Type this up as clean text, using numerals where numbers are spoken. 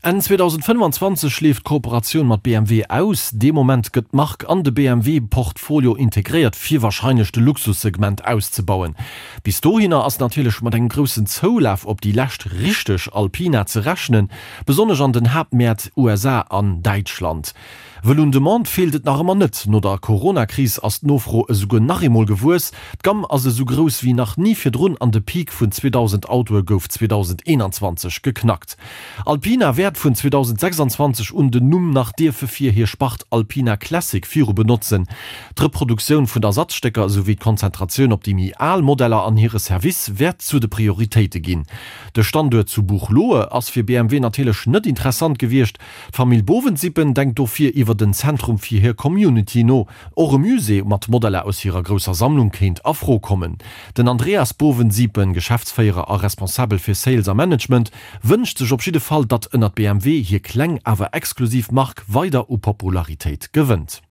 Enn 2025 leeft d'Kooperatioun mat BMW aus. Dee Moment gëtt d'Mark an de BMW-Portfolio integréiert, fir warscheinlech de Luxussegment auszebauen. Bis dohinner ass natierlech mat engem groussen Zoulaf op déi lescht richteg Alpina ze rechnen, besonnesch an den Haaptmäert USA an Däitschland. Wëll un Demande feelt et nach ëmmer net. No der Corona-Kris ass d'Nofro esouguer nach eemol gewuess. D'Gamm ass esou grouss wéi nach ni virdrun an de Peak vun 2.000 Autoe gouf 2021 geknackt. Alpina wäert vun 2026 un den Numm nach dierfe fir hir Spart Alpina Classic viru benotzen. D'Reproduktioun vun Ersatzstécker esouwéi d'Konzentratioun op déi méi al Modeller an hire Service wäert zu de Prioritéite ginn. De Standuert zu Buchloe ass fir BMW natierlech net interessant gewiescht. D'Famill Bovensiepen denkt dofir iwwer den Zentrum fir hir Community no. Och e Musée mat Modeller aus hirer grousser Sammlung kéint a Fro kommen. Den Andreas Bovensiepen, Geschäftsféierer a Responsabel fir Sales a Management, wënscht sech op jidde Fall, datt ënnert BMW hir kleng awer exklusiv Mark weider u Popularitéit gewënnt.